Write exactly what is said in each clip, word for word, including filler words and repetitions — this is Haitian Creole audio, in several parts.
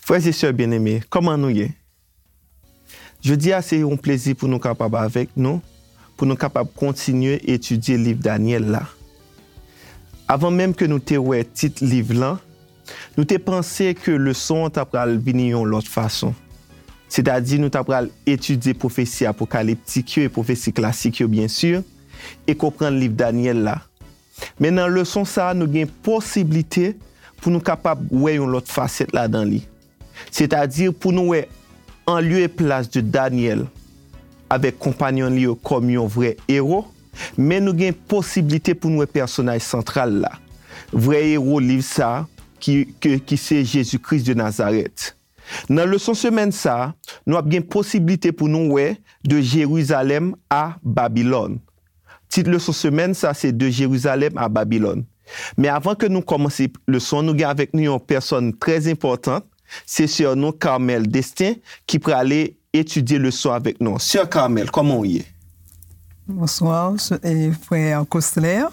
Frè e sè byeneme, kòman nou ye? Jodi a, se yon plezi pou nou kapab avèk nou, pou nou kapab kontinye etidye liv Danyèl la. Avan menm ke nou te wè tit liv lan, nou te panse ke leson an ta pral vini yon lòt fason. Sètadi, nou ta pral etidye pwofesi apokaliptik yo e pwofesi klasik yo, byen si, e konprann liv Danyèl la. Men nan leson sa a, nou gen posiblite pou nou kapab wè yon lòt fasèt ladan li. Sètadi, pou nou wè an lye e plas de Danyèl avèk konpayonn li yo kòm yon vrè ewo, men nou gen posiblite pou nou wè pèsonaj santral la, vrè ewo liv sa a, ki, ke, ki se Jezi Kris de Nazarèt. Nan leson semèn sa a, nou ap gen posiblite pou nou wè de Jerizalèm a Babilòn. Tit leson semèn sa a se De Jérusalem à Babylone. Men avan ke nou kòmanse leson an, nou gen avèk nou yon pèsòn trè enpòtan, se sè nou Carmel Destin ki prale etidye leson avèk nou. Sè Carmel, kòman w ye? Bonswa, e, frè Cosler.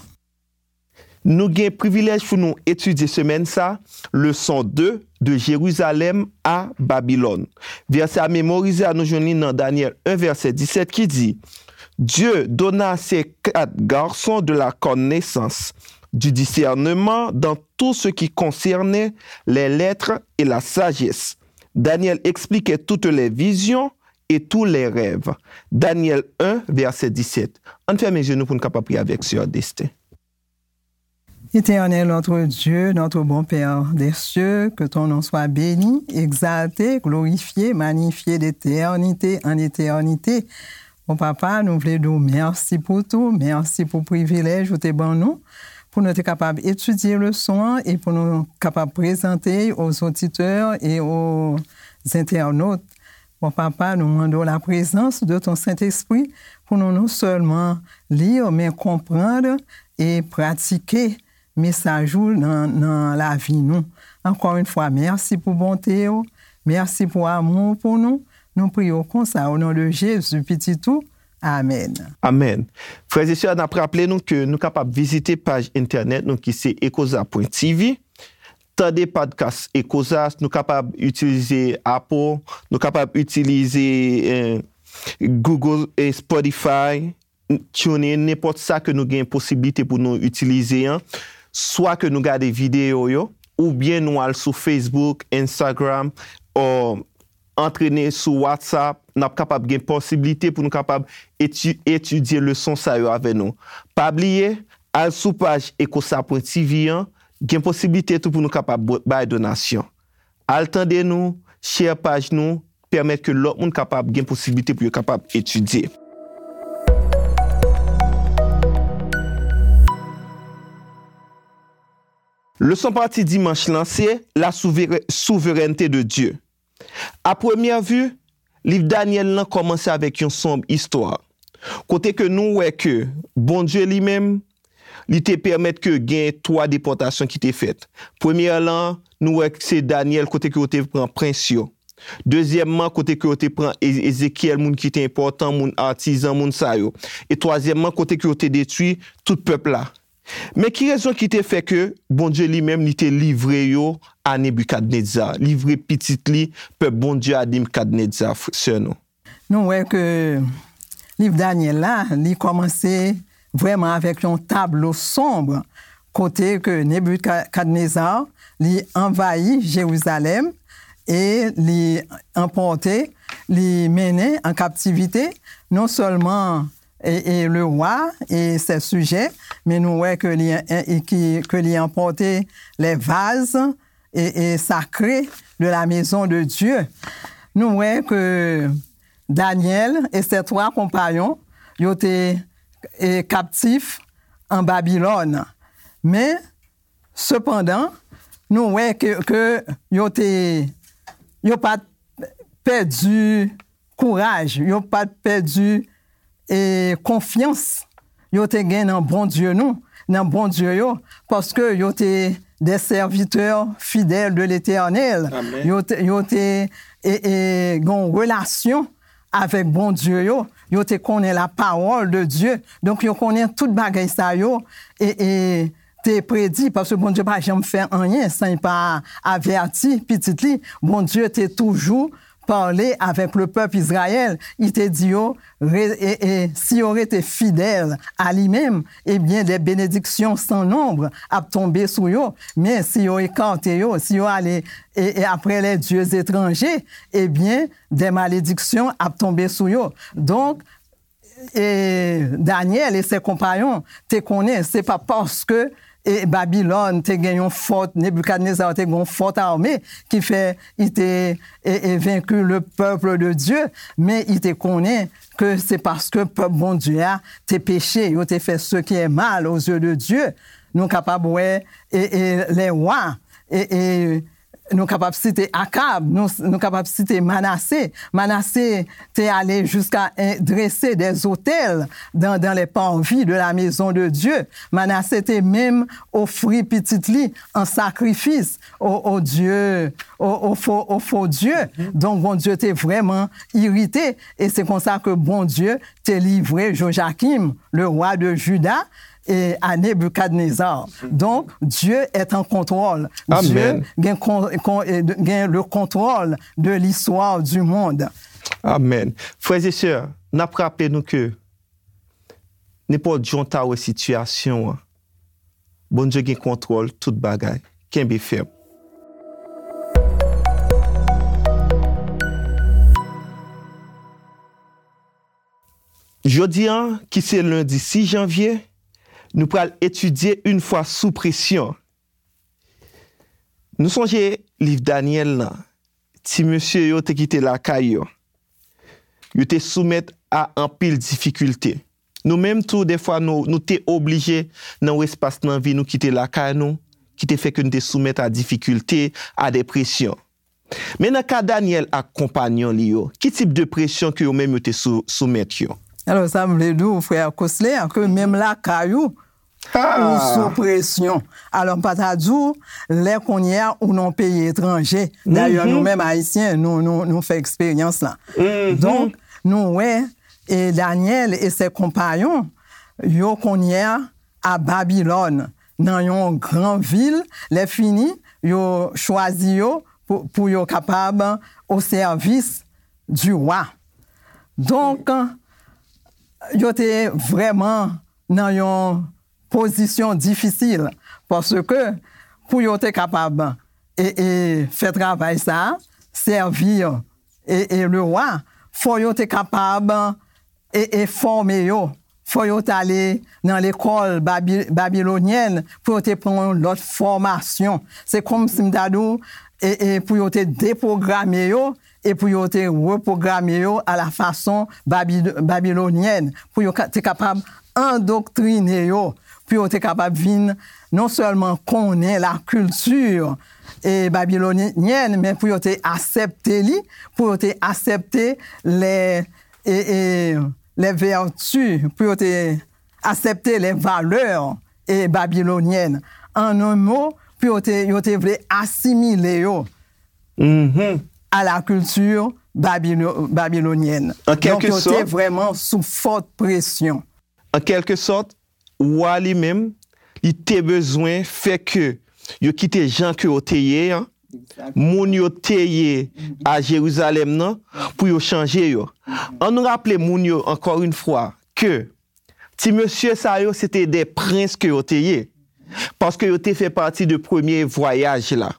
Nou gen privilèj pou nou etidye semèn sa, leson de, De Jérusalem à Babylone. Vèsè a memorize a, nou jwenn li nan Danyèl en, vèsè disèt ki di, Dieu donna à ces quatre garçons de la connaissance, du discernement dans tout ce qui concernait les lettres et la sagesse. Daniel expliquait toutes les visions et tous les rêves. Daniel en, vèsè disèt. Ann fèmen je nou pou n kapab priye avèk sè Destin. Éternel notre Dieu, notre bon Père des cieux, que ton nom soit béni, exalté, glorifié, magnifié d'éternité en éternité. Bon papa, nou vle di w mèsi pou tou, mèsi pou privilèj ou te ban nou, pou nou te kapab etidye leson an e pou nou kapab prezante aux auditeurs et aux internautes. Bon papa, nou mande w la prezans de ton Sentespri pou nou non sèlman li, men konprann e pratike mesaj ou nan, nan lavi nou. Encore une fois, mèsi pou bonte w, mèsi pou amou w pou nou. Nou priye w konsa, o non de Jezi, Pitit ou. Amèn. Amèn. Frè e sè, n ap raple nou ke nou kapab vizite paj entènèt nou ki se ekoza pwen T V. Tande podcast Ekoza, nou kapab itilize Apple, nou kapab itilize eh, Google, eh, Spotify, TuneIn, nenpòt sa ke nou gen posiblite pou nou itilize an, swa ke nou gade videyo yo, oubyen nou al sou Facebook, Instagram, o antrene sou WhatsApp, n ap kapab gen posiblite pou nou kapab eti, etidye leson sa yo avè nou. Pa bliye, al sou paj ekosa pwen T V an, gen posiblite tou pou nou kapab bay donasyon. Al tande nou, share paj nou, pèmèt ke lòt moun kapab gen posiblite pou yo kapab etidye. Leson pati dimanch lan se La souverè- souveraineté de Dieu. A premyè vi, liv Danyèl lan kòmanse avèk yon sonb istwa, kote ke nou wè ke Bondye li menm, li te pèmèt ke gen twa depòtasyon ki te fèt. Premyè lan, nou wè se Danyèl kote ke yo te pran prens yo. Dezyèmman, kote ke yo te pran E- Ezekyèl, moun ki te enpòtan, moun atizan, moun sa yo. E twazyèmman, kote ke yo te detwi tout pèp la. Men ki rezon ki te fè ke Bondye li menm li te livre yo a Nebikadneza, livre pitit li, pèp Bondye a Nebikadneza, sè nou? Nou wè ke liv Danyèl la, li kòmanse vrèman avèk yon tablo sonb, kote ke Nebikadneza, li anvayi Jerizalèm e li anpòte, li mennen an kaptivite non sèlman e, e le wa e ses sijè, men nou wè ke li, e, ki, ke li anpòte les vases e, e sacrés de la maison de Dieu. Nou wè ke Danyèl e ses twa konpayon, yo te e, kaptif an Babilòn. Men, sepandan, nou wè ke, ke yo te, yo pa t pèdi kouraj, yo pa t pèdi e, konfyans yo te gen nan Bondye nou, nan Bondye yo, paske yo te des serviteurs fidèles de l'Éternel. Yo te, yo te e, e, gen yon relasyon avèk Bondye yo, yo te konnen la parole de Dieu. Donk, yo konnen tout bagay sa yo, e, e, te predi, paske Bondye pa janm fè anyen san li pa avèti pitit li. Bondye te toujou pale avèk le pèp Izrayèl. Li te di yo, re- e, e, si yo rete fidèl a li menm, ebyen, des bénédictions sans nombre ap tonbe sou yo. Men si yo ekate yo, si yo ale e, e après les dieux étrangers, ebyen, des malédictions ap tonbe sou yo. Donk, e, Danyèl e se konpayon te konnen se pa paske e, Babilòn te gen yon fòt, Nebikadneza te gen yon fòt ame ki fè li te e, e, vaincu le peuple de Dieu, men li te konnen ke se paske pèp Bondye a te peche, yo te fè ce qui est mal aux yeux de Dieu. Nou kapab wè e, e, les rois e, e, nou kapab site Akab, nou, nou kapab site Manase. Manase te ale jiska en- drese des otèl dans, dans les parvis de la maison de Dieu. Manase te menm ofri pitit li an sakrifis o, o Dye, o, o fo, o fo Dye. Donk, Bondye te vrèman irite. E se konsa ke Bondye te livre Jojakim, le roi de Juda, e a Nebikadneza. Donk, Dieu est en contrôle. Dieu Amen. Gen, kon, kon, e, gen le contrôle de l'histoire du monde. Amen. Frères et sœurs, n ap raple nou ke nenpòt jan w ta wè sitiyasyon an, Bondye gen kontwòl tout bagay. Kenbe fèm. Jodi a, ki se lendi sis janvye, nou pral etidye une foi sous pression. Nou sonje liv Danyèl lan, ti mesye yo te kite lakay yo. Yo te soumèt a anpil difikilte. Nou menm tou, dèfwa, nou, nou te oblije nan yon espas nan vi nou kite lakay nou, ki te fè ke nou te soumèt a difikilte, a de presyon. Men nan ka Danyèl ak konpanyon li yo, ki tip de presyon ke yo menm yo te sou, soumèt yo? Alò, sa m vle di w, frè Cosler, ke menm lakay ou, ou sou presyon. Alò, m pa ta di w, lè kounye a ou nan peyi etranje. Dayè, nou menm Ayisyen, nou, nou, nou fè eksperyans la. Donk, nou wè, e Danyèl e se konpayon, yo kounye a a Babilòn, nan yon gran vil, lè fini, yo chwazi yo pou, pou yo kapab o sèvis du roi. Donk, yo te vrèman nan yon pozisyon difisil, paske pou yo te kapab e, e, fè travay sa, sèvi e, e le roi, fò yo te kapab e, e fòme yo. Fò yo t ale nan lekòl babi, babilonyèn pou yo te pran yon lòt fòmasyon. Se kòmsi m ta di w, e, e pou yo te depwograme yo e pou yo te repwograme yo a la fason babi, babilonyèn, pou yo ka, te kapab andoktrine yo, pou yo te kapab vin non sèlman konnen la kilti e babilonyèn, men pou yo te aksepte li, pou yo te aksepte lè e, e, les vertus, pou yo te aksepte les valeurs e babilonyèn. An yon mo, pou yo te, yo te vle asimile yo a la kilti babilo, babilonyèn. An kèlke Donk, yo te sòt. Vrèman sou fòt presyon. An kèlke sòt, wa li menm, li te bezwen fè ke yo kite jan ke yo te ye an, moun yo te ye a Jerizalèm nan, pou yo chanje yo. An nou raple moun yo, encore une fois, ke ti mesye sa yo, se te de prens ke yo te ye. Paske yo te fè pati de premye vwayaj la.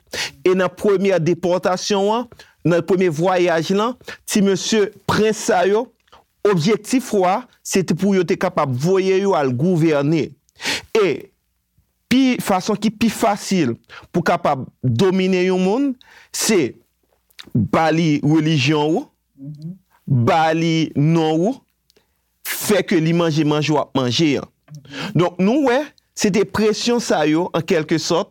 E nan premye depòtasyon an, nan premye vwayaj lan, ti mesye prens sa yo, objektif wa, se te pou yo te kapab voye yo al gouvène. E pi, fason ki pi fasil pou kapab domine yon moun, se ba li relijyon ou, ba li non ou, fè ke li manje manje w ap manje an. Donk, nou wè, se te presyon sa yo, an kèlke sòt,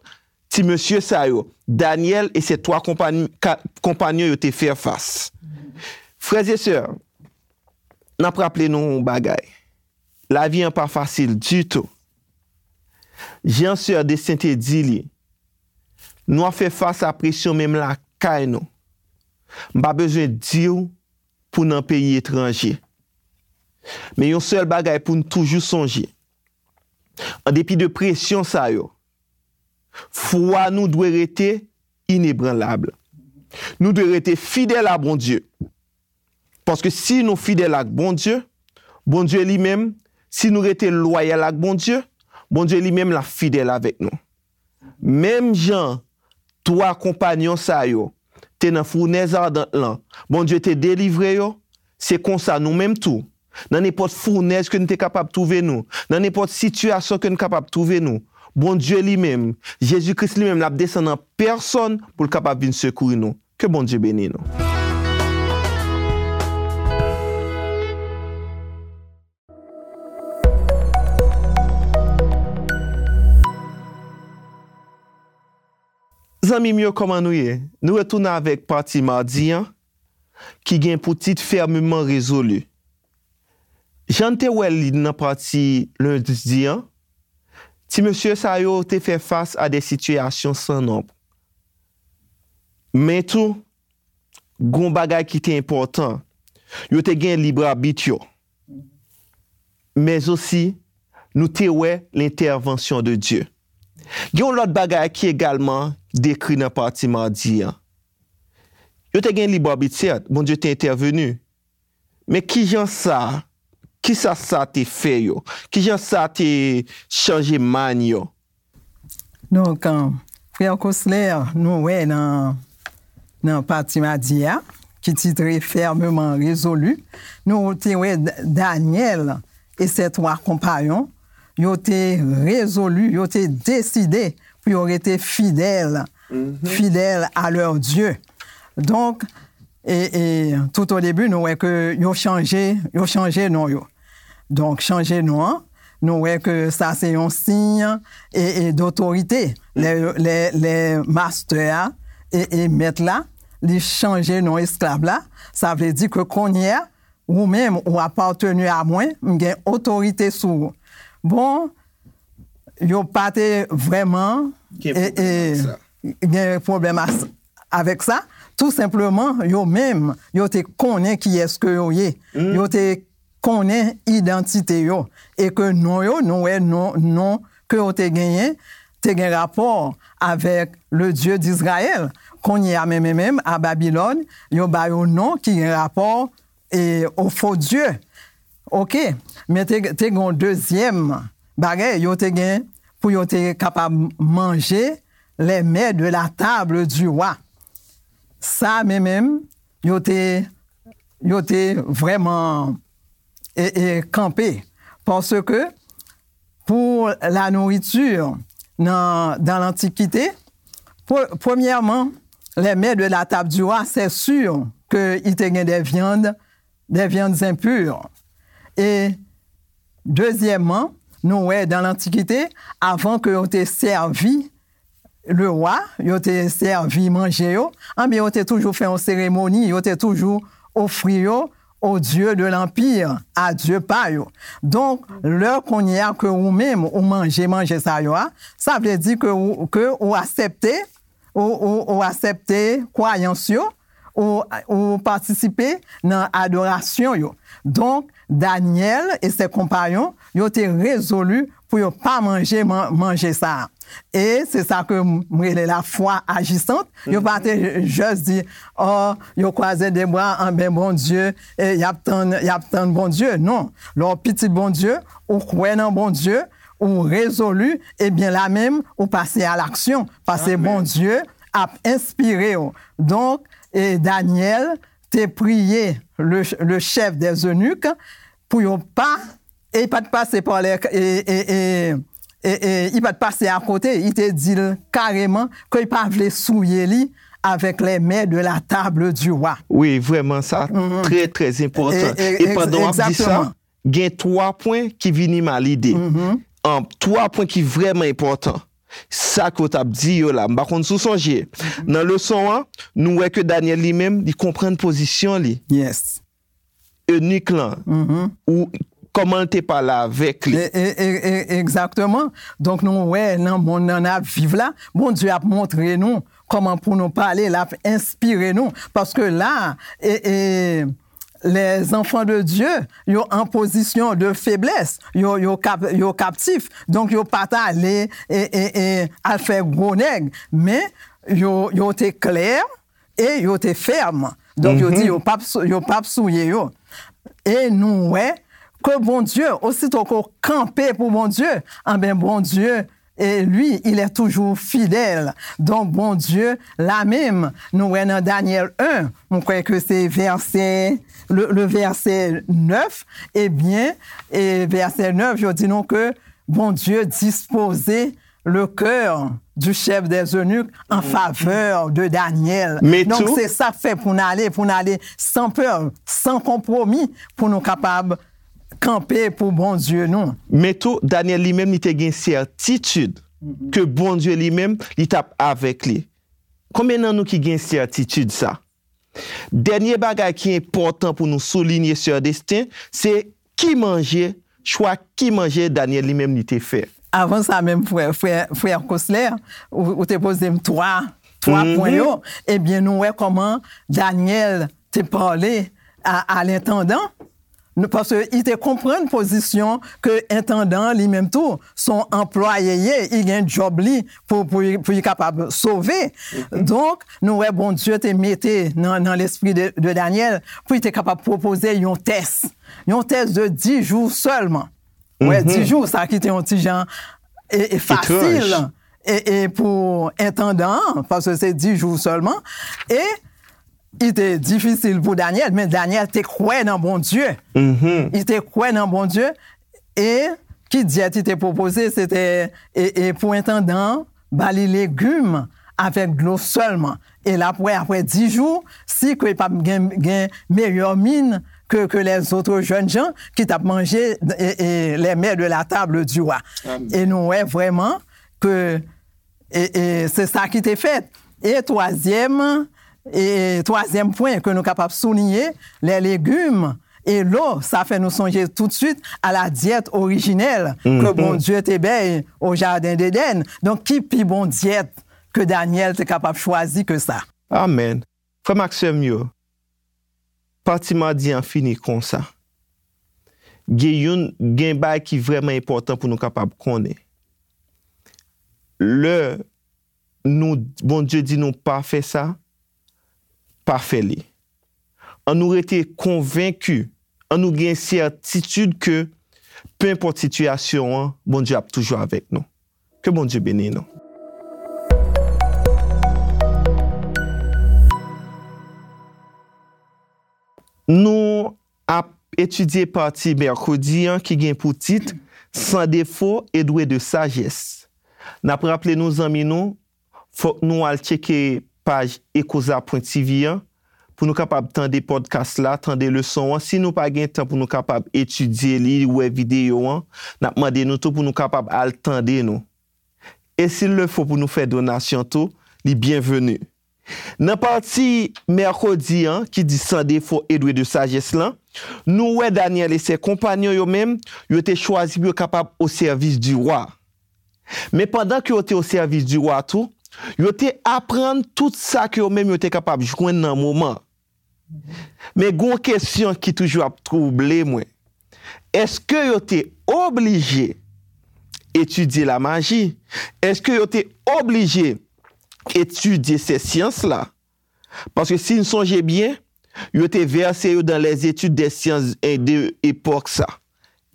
ti mesye sa yo, Danyèl e se twa konpany, ka, konpanyon yo te fè fas. Frè e sè, n ap raple nou yon bagay. Lavi an pa fasil ditou. Jan sè Desten te di li, nou ap fè fas a presyon menm lakay nou. M pa bezwen di w pou nan peyi etranje. Men yon sèl bagay pou n toujou sonje. An depi de presyon sa yo, Fwa nou dwe rete inebranlab. Nou dwe rete fidèl a Bondye. Paske si nou fidèl ak Bondye, Bondye li menm, si nou rete lwayal ak Bondye, Bondye li menm l ap fidèl avèk nou. Menm jan twa konpayon sa yo te nan founèz adan lan, Bondye te delivre yo, se konsa nou menm tou, nan nenpòt founèz ke nou te kapab twouve nou, nan nenpòt sitiyasyon ke nou kapab twouve nou, Bondye li menm, Jezi Kris li menm, l ap desann an pèsòn pou l kapab vin sekouri nou. Ke Bondye beni nou. Zanmi m yo, kòman nou ye? Nou retounen avèk pati madi an, ki gen pou tit Fermement Résolu. Jan n te wè li nan pati lendi an, ti mesye sa yo te fè fas a de sitiyasyon san nonb. Men tou, gon bagay ki te enpòtan. Yo te gen lib abit yo. Men osi, nou te wè lentèvansyon de Dye. Gen yon lòt bagay ki egalman dekri nan pati madi an. Yo te gen lib abit, sèt, Bondye te entèveni. Men kijan sa, kisa sa te fè yo? Kijan sa te chanje mind yo? Donk, an, frè Cosler, nou wè nan, nan pati madi a, ki titre Fermement Résolu, nou te wè D-, Danyèl e ses trois compagnons, yo te rezoli, yo te deside pou yo rete fidèl, fidèl à leur Dieu. Donk, e, e, tout o debi, nou wè ke yo chanje, yo chanje non yo. Donk, chanje non an, nou wè ke sa se yon siy e, e dotorite. Lè, lè, lè mastè a e, e mèt la, li chanje non esklav la, sa vle di ke kounye a, ou menm, ou apateni a mwen, m gen otorite sou ou. Bon, yo pa te vrèman Gen e, pwoblèm e, ak sa. Gen pwoblèm as-, avèk sa. Tou senpleman, yo menm, yo te konnen kiyès ke yo ye. Yo te konnen idantite yo. E ke non yo, nou wè non, non ke yo te genyen, te gen rapò avèk le Dieu d'Israël. Kounye a menm, menm, menm, a Babilòn, yo ba yo non ki gen rapò e, o fo dye. Oke, men te, te gen yon dezyèm bagay, yo te gen pou yo te kapab manje les mets de la table du roi. Sa menm, menm, yo te, yo te vrèman e, e, kanpe. Paske pour la nourriture nan, dans l'Antiquité, pre-, premièrement, les mets de la table du roi, c'est sûr que il te gen des viandes, des viandes impures. E dezyèmman, nou wè dans l'Antiquité, avan ke yo te sèvi le roi, yo te sèvi manje yo, anben yo te toujou fè yon seremoni, yo te toujou ofri yo au Dieu de l'Empire, a Dye pa yo. Donk, lè kounye a ke ou menm ou manje manje sa yo a, sa vle di ke ou, ke ou aksepte, ou, ou, ou aksepte kwayans yo, ou, ou patisipe nan adorasyon yo. Donk, Danyèl e se konpayon, yo te rezoli pou yo pa manje man-, manje sa a. E se sa ke m, m rele la foi agissante. Yo pa te just di, oh, yo kwaze de bra, anben Bondye, e y ap tann, y ap tann Bondye. Non. Lè w pitit Bondye, ou kwè nan Bondye, ou rezoli, ebyen la menm, ou pase a laksyon. Paske Bondye ap enspire w. Donk, e Danyèl te priye le, le chef des eunuques pou yo pa, e li pa t pase pa lè, e, e, e, e, e, li pa t pase akote, li te di l kareman ke li pa vle souye li avec les mets de la table du roi. Wi, vrèman, sa trè, trè enpòtan. E, e, e pandan w ap di sa, egzakteman, gen twa pwen ki vini m a lide. An, twa pwen ki vrèman enpòtan. Sa ke w t ap di yo la, m pa konn si w sonje. Nan leson an, nou wè ke Danyèl li menm, li konprann pozisyon li. Yes. Enik lan, ou, kòman l te pale avèk li. E, e, e, e, egzakteman. Donk, nou wè nan monn nan n ap viv la, Bondye ap montre nou kòman pou nou pale, l ap enspire nou. Paske la, e, e, les enfants de Dieu, yo an pozisyon de feblès, yo, yo, kap, yo kaptif. Donk, yo pa t ale e, e, e, al fè gwo nèg, men yo, yo te klè e yo te fèm. Donk, yo di yo p ap sou- yo p ap souye yo. E nou wè ke Bondye, osito ke w kanpe pou Bondye, anben, Bondye, e lui, il est toujours fidèle. Donk, Bondye, la menm, nou wè nan Danyèl en, mwen kwè ke se vèsè, le, le vèsè nèf, ebyen, e vèsè nèf, yo di nou ke Bondye dispoze le cœur du chef des eunuques en faveur de Daniel. Men Donk, tou- se sa k fè pou n ale, pou n ale san pè, san konpwomi, pou nou kapab kanpe pou Bondye nou. Men tou, Danyèl li menm, li te gen sètitid ke Bondye li menm, li t ap avèk li. Konbyen nan nou ki gen sètitid sa? Dènye bagay ki enpòtan pou nou soulinye, sè Destin, se ki manje, chwa ki manje Danyèl li menm li te fè. Avan sa menm, frè, frè, frè Cosler, ou, ou te poze m twa, twa pwen yo. Ebyen, nou wè kòman Danyèl te pale a, a lentandan. Nou, paske li te konprann pozisyon ke entandan an li menm tou, se yon anplwaye ye, li gen djòb li pou, pou, pou li kapab sove. Donk, nou wè Bondye te mete nan, nan lespri de, de Danyèl pou li te kapab pwopoze yon tès. Yon tès de dis jou sèlman. Wè, dis jou, sa ki te yon ti jan e, e fasil e, e pou entandan an, paske se dis jou sèlman. E li te difisil pou Danyèl, men Danyèl te kwè nan Bondye. Li te kwè nan Bondye, e ki dyèt li te pwopoze, se te e, e pou entandan an, ba li legim avèk dlo sèlman. E l ap wè, apre dis jou, si ke l p ap gen, gen meyè min ke, ke lèzòt jèn jan ki t ap manje e, e, les mets de la table du roi. E nou wè vrèman ke e, e, se sa ki te fèt. E twazyèm, e twazyèm pwen ke nou kapab souliye, les légumes et l'eau, sa fè nou sonje toutswit a la dyèt orijinèl ke Bondye te bay o jaden Edenn. Donk, ki pi bon dyèt ke Danyèl te kapab chwazi ke sa? Amèn. Frè m ak sè m yo, pati madi an fini konsa. Gen youn, gen bagay ki vrèman enpòtan pou nou kapab konnen. Lè nou, Bondye di nou pa fè sa, pa fè li. An nou rete konvenki, an nou gen sètitid ke, penpòt sitiyasyon an, Bondye ap toujou avèk nou. Ke Bondye beni nou. Nou ap etidye pati mèkredi an ki gen pou tit Sans défaut et doué de sagesse. N ap raple nou, zanmi nou, fòk nou al tcheke paj ekoza pwen ti vi an pou nou kapab tande pòdkas la, tande leson an. Si nou pa gen tan pou nou kapab etidye li, wè videyo an, n ap mande nou tou pou nou kapab al tande nou. E si l le fo pou nou fè donasyon tou, li byenveni. Nan pati mèkredi an, ki di Sans défaut et doué de sagesse lan, nou wè Daniel e sè konpanyon yo menm, yo te chwazi pou yo kapab au service du roi. Men pandan ke yo te au service du roi tou, yo te aprann tout sa ke yo menm yo te kapab jwenn nan moman. Men gon kesyon ki toujou ap twouble mwen. Èske yo te oblije etidye lamaji? Èske yo te oblije etidye sè syans la? Paske si n sonje byen, yo te vèse yo dans les études des sciences de epòk sa.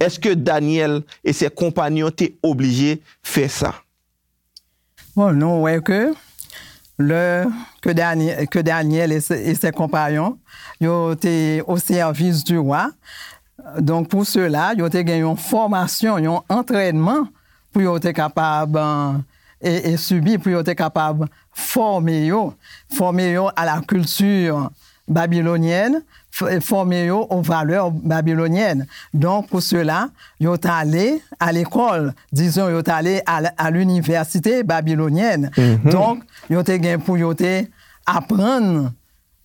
Èske Daniel e sè konpanyon te oblije fè sa? Bon, nou wè ke lè ke Dani-, ke Daniel e se, e sè konpanyon, yo te o sèvis di wa. Donk, pou sela, yo te gen yon fòmasyon, yon antrènman pou yo te kapab, e, e sibi, pou yo te kapab fòme yo, fòme yo a la kilti babilonyèn, f-, fòme yo o valè babilonyèn. Donk, pou sela, yo t ale a lekòl, dizon, yo t ale a, a linivèsite babilonyèn. Donk, yo te gen pou yo te aprann,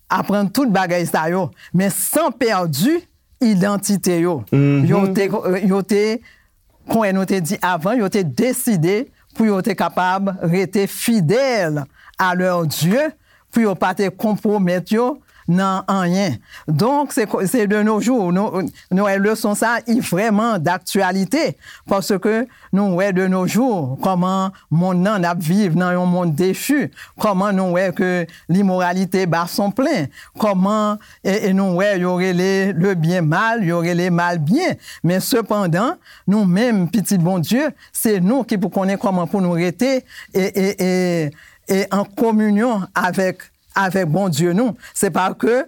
aprann tout bagay sa yo, men san pèdi idantite yo. Yo te, yo te, kon nou te di avan, yo te deside pou yo te kapab rete fidèl a lè Dye, pou yo pa te konpwomèt yo nan anyen. Donk, se, se de nos jours, nou, nou wè leson sa, i vrèman daktyalite, paske nou wè de nos jours kòman monn nan n ap viv nan yon monn dechi, kòman nou wè ke limoralite bat son plen, kòman, e, e nou wè yo rele le bien mal, yo rele mal bien. Men sepandan, nou menm, pitit Bondye, se nou ki pou konnen kòman pou nou rete e, e, e, e an kominyon avèk, avèk Bondye nou. Se pa ke,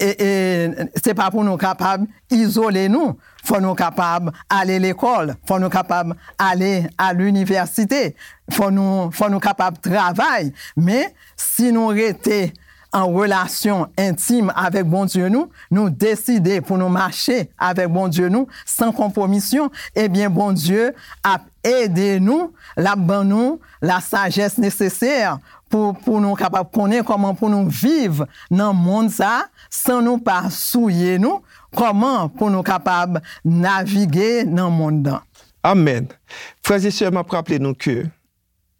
e, e, se pa pou nou kapab izole nou. Fò nou kapab ale lekòl, fò nou kapab ale a linivèsite, fò nou, fò nou kapab travay. Men, si nou rete an relasyon entim avèk Bondye nou, nou deside pou nou mache avèk Bondye nou san konpwomisyon, ebyen, Bondye ap ede nou, l ap ban nou la sajès nesesè pou, pou nou kapab konnen kòman pou nou viv nan monn sa a san nou pa souye nou, kòman pou nou kapab navige nan monn nan. Amèn. Frè e sè, m ap raple nou ke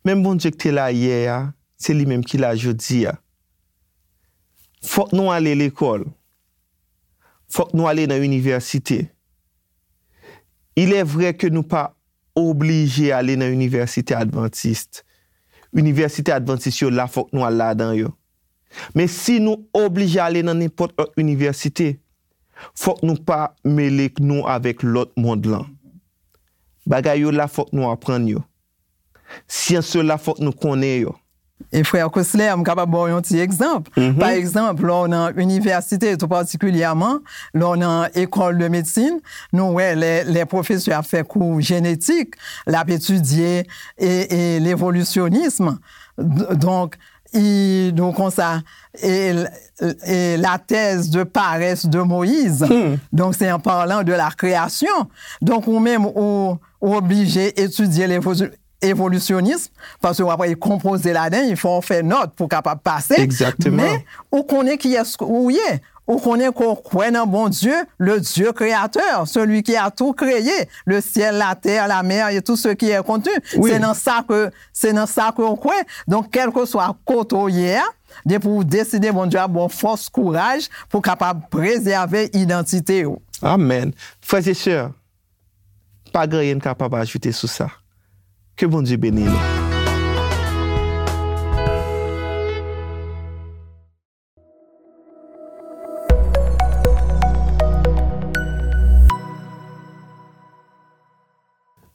menm Bondye ki te la yè a, se li menm ki la jodi a. Fòk nou ale lekòl. Fòk nou ale nan inivèsite. Il est vrai ke nou pa oblije ale nan inivèsite advantis. Inivèsite advantis yo la, fòk nou al ladan yo. Men si nou oblije ale nan nenpòt lòt inivèsite, fòk nou pa mele nou avèk lòt mond lan. Bagay yo la, fòk nou aprann yo. Syans yo la, fòk nou konnen yo. E frè Cosler, m kapab ba w yon ti egzanp. Mhm. Pa egzanp, lè w nan inivèsite, tou patikilyèman, lè w nan école de médecine, nou wè lè, lè pwofesè ap fè kou jenetik, l ap etidye e, e levolisyonism. D-, donk, i, nou konsa, e, e la thèse de paresse de Moïse. Hmm. Donk, se en parlant de la création. Donk, ou menm, ou, ou oblije etidye levo-, evolisyonis, paske w ap konpoze ladan, il faut w fè nòt pou w kapab pase. Exactement. Men, ou konnen kiyès ou ye. Ou konnen ke w kwè nan Bondye, le Dieu créateur, celui qui a tout créé, le ciel, la terre, la mer et tout ce qui est contenu. Oui. Se nan sa ke, se nan sa ke w kwè. Donk, kèlkeswa kote w ye a, depi w deside, Bondye ap ba w fòs, kouraj pou w kapab prezève idantite w. Amèn. Frè e sè, pa gen anyen n kapab ajoute sou sa. Ke Bondye beni nou.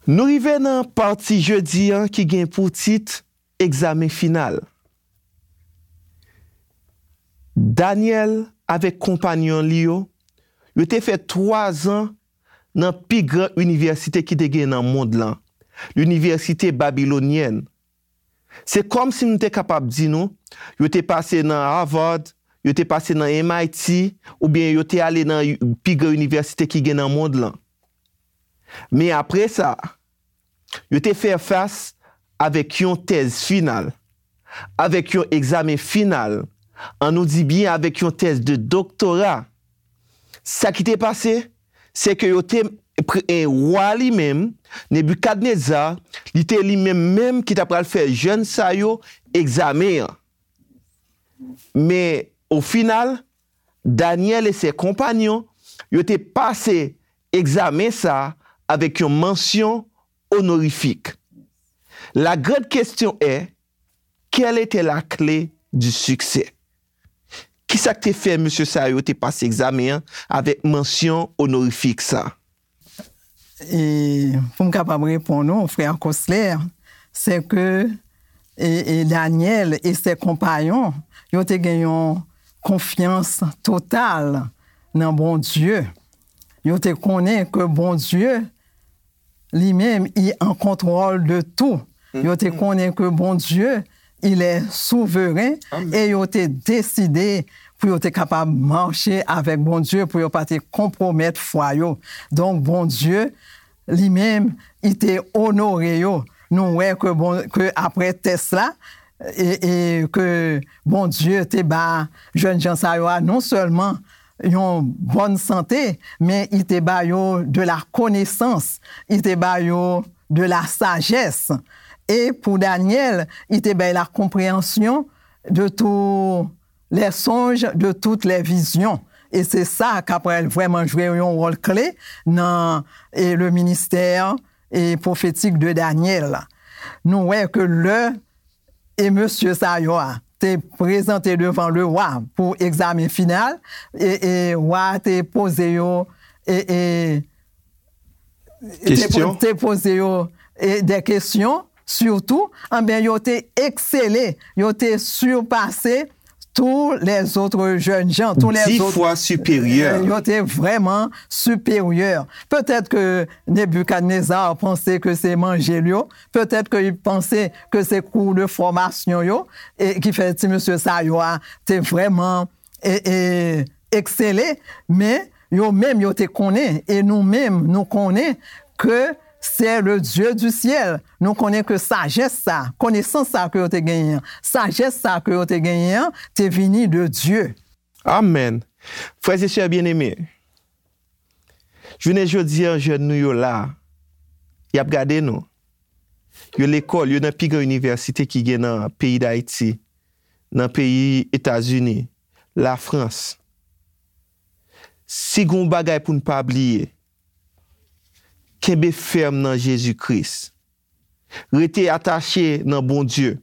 Nou rive nan pati jedi an ki gen pou tit egzamen final. Danyèl avèk konpanyon li yo, yo te fè twa zan nan pi gran inivèsite ki te gen nan mond lan, linivèsite babilonyèn. Se kòmsi nou te kapab di nou, yo te pase nan Harvard, yo te pase nan M I T, oubyen yo te ale nan pi gran inivèsite ki gen nan mond lan. Men apre sa, yo te fè fas avèk yon tèz final, avèk yon egzamen final, ann nou di byen avèk yon tèz de doktora. Sa ki te pase, se ke yo te pre-, e wa li menm, Nebikadneza, li te li menm menm ki ta pral fè jèn sa yo egzamen an. Men, o final, Danyèl e se konpanyon, yo te pase egzamen sa a avèk yon mansyon onorifik. La grande question est, quelle était la clé du succès? Kisa k te fè mesye sa yo te pase egzamen an avèk mansyon onorifik sa? E pou m kapab reponn ou, frè Cosler, se ke, e, e Danyèl e se konpanyon, yo te gen yon konfyans total nan Bondye. Yo te konnen ke Bondye, li menm, i an kontwòl de tou. Yo te konnen ke Bondye, il est souverain, e yo te deside pou yo te kapab mache avèk Bondye, pou yo pa te konpwomèt fwa yo. Donk, Bondye, li menm, i te onore yo. Nou wè ke bon, ke apre tès la, e, e ke Bondye te ba jèn jan sa yo a non sèlman yon bòn sante, men i te ba yo de la connaissance, i te ba yo de la sagesse. E pou Danyèl, i te bay la compréhension de tout les songes, de toutes les visions. E se sa k ap pral vrèman jwe yon wòl kle nan, e, le ministère, e, prophétique de Daniel. Nou wè ke lè, e, mesye sa yo a te prezante devan le wa pou egzamen final, e, e wa a te poze yo, e, e, te po-, Kesyon. Te poze yo, e, de kesyon, sitou, anben, yo te eksele, yo te sipase tous les autres jeunes gens, tous les Dis autres, fois supérieur. Yo te vrèman siperyè. Petèt ke Nebikadneza panse ke se manje l yo, petèt ke li panse ke se kou de fòmasyon yo, e ki fè ti mesye sa yo a te vrèman, e, e, eksele, men yo menm yo te konnen, e nou menm nou konnen ke c'est le Dieu du ciel. Nou konnen ke sajès sa, konesans sa ke yo te genyen an, sajès sa ke yo te genyen an, te vini de Dye. Amèn. Frè e sè byeneme, jounen jodi a, jèn nou yo la, y ap gade nou. Yo lekòl, yo nan pi gran inivèsite ki gen nan peyi Dayiti, nan peyi Etazini, Lafrans. Si gen yon bagay pou n pa bliye, kenbe fèm nan Jezi Kris. Rete atache nan Bondye.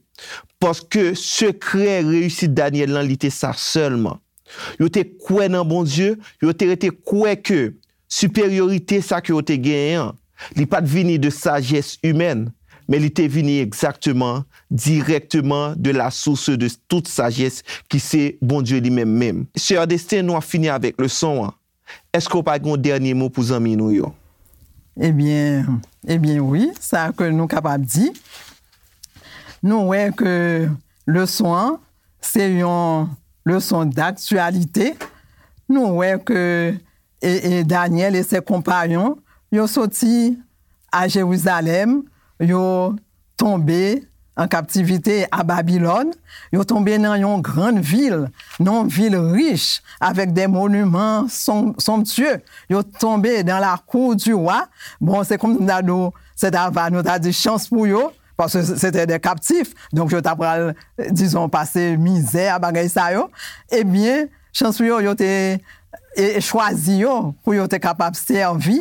Paske sekrè reyisit Danyèl lan, li te sa sèlman. Yo te kwè nan Bondye, yo te rete kwè ke siperyorite sa ke yo te genyen an, li pa t vini de sajès imèn, men li te vini egzakteman, dirèkteman de la source de toute sagesse ki se Bondye li menm menm. Sè Destin, nou ap fini avèk leson an. Èske w pa gen yon dènye mo pou zanmi nou yo? Ebyen, ebyen wi, sa ke nou kapab di, nou wè ke leson an se yon leson daktyalite. Nou wè ke, e, e Danyèl e se konpayon, yo soti a Jerizalèm, yo tonbe an kaptivite a Babilòn, yo tonbe nan yon grann vil, nan yon vil rich, avèk de moniman son-, sonptye. Yo tonbe dans la cour du roi. Bon, se kòm si m ta di w, se ta va, nou ta di chans pou yo, paske se te de kaptif. Donk, yo ta pral, dizon, pase mizè a bagay sa yo. Ebyen, chans pou yo, yo te, e, e chwazi yo pou yo te kapab sèvi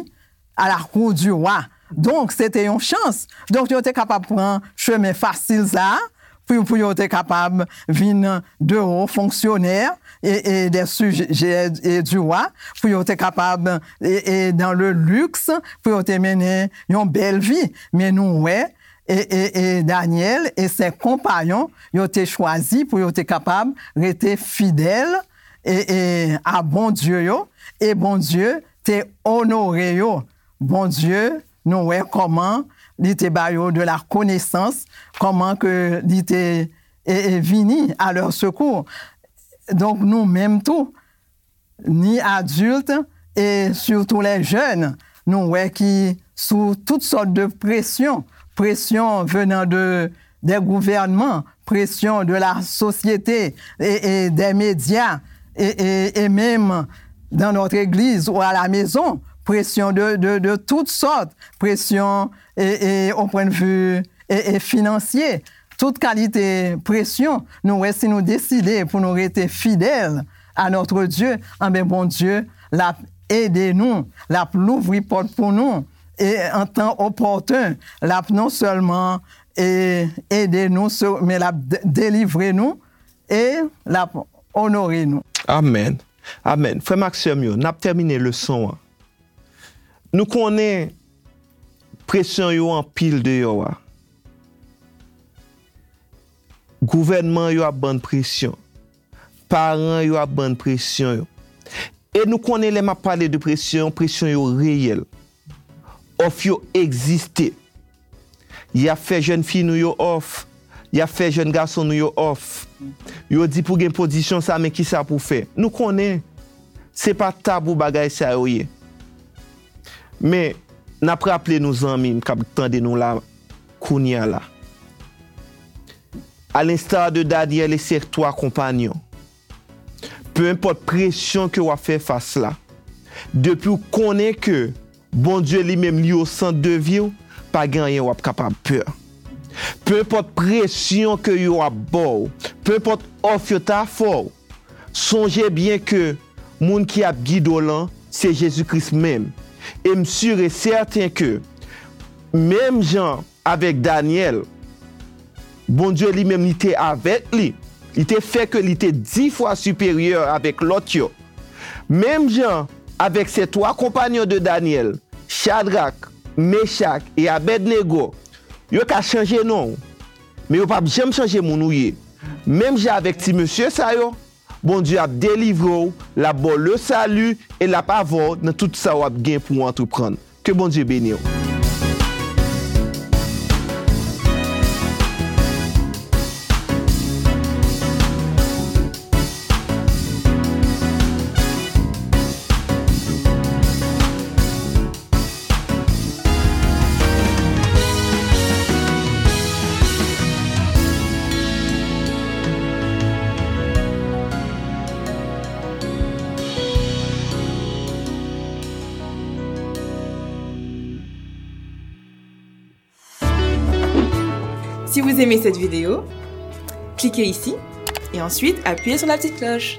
à la cour du roi. Donk, se te yon chans. Donk, yo te kapab pran chemen fasil sa a, pou, pou yo te kapab vin de wo fonksyonè e, e de sijè e du roi, pou yo te kapab, e, e dans le luxe, pou yo te mennen yon bèl vi. Men nou wè, e, e, e Danyèl e se konpayon, yo te chwazi pou yo te kapab rete fidèl, e, e a Bondye yo, e Bondye te onore yo. Bondye, nou wè kòman li te ba yo de la konesans, kòman ke li te, e, e vini à leur secours. Donk, nou menm tou, ni adilt e surtout les jeunes, nou wè ki sou tout sòt de presyon, presyon venant de, des gouvernements, pression de la société et, et des médias et, et, et même dans notre église ou à la maison, pression de, de, de toutes sortes, pression et, et au point de vue et, et financier, tout kalite presyon, nou wè si nou deside pou nou rete fidèl à notre Dieu, anben Bondye l ap ede nou, l ap louvri pòt pou nou, e an tan opòten, l ap non sèlman e ede nou, se- men l ap de- delivre nou e l ap onore nou. Amèn. Amèn. Frè m ak sè m yo, n ap tèmine leson an. Nou konnen presyon yo anpil deyò a. Gouvènman yo ap bann presyon. Paran yo ap bann presyon yo. E nou konnen lè m ap pale de presyon, presyon yo reyèl. Òf yo egziste. Y ap fè jèn fi nou yo òf. Y ap fè jèn gason nou yo òf. Yo di pou gen pozisyon sa, men kisa pou fè. Nou konnen se pa tabou bagay sa yo ye. Men, n ap raple nou zanmi m k ap tande nou la kounye a la. À l'instar de Daniel et ses trois compagnons, peu importe pression que w ap fè fas la, depi w konnen ke Bondye li menm li o sant de vi w, pa gen anyen w ap kapab pè. Peu importe pression que yo ap ba w, peu importe òf yo ta fè w, Sonje byen ke moun ki ap gide w lan se Jezi Kris menm. E m si e sèten ke, menm jan avèk Danyèl, Bondye li menm li te avèk li. Li te fè ke li te dis fwa siperyè avèk lòt yo. Menm jan avèk se twa konpanyon de Danyèl, Chadrak, Mechak e Abèdnego, yo ka chanje non w, men yo p ap janm chanje moun ou ye. Menm jan avèk ti mesye sa yo, Bondye ap delivre w, l ap ba w le sali e l ap avè w nan tout sa w ap gen pou w antreprann. Ke Bondye beni w. Si vous aimez cette vidéo, cliquez ici et ensuite appuyez sur la petite cloche.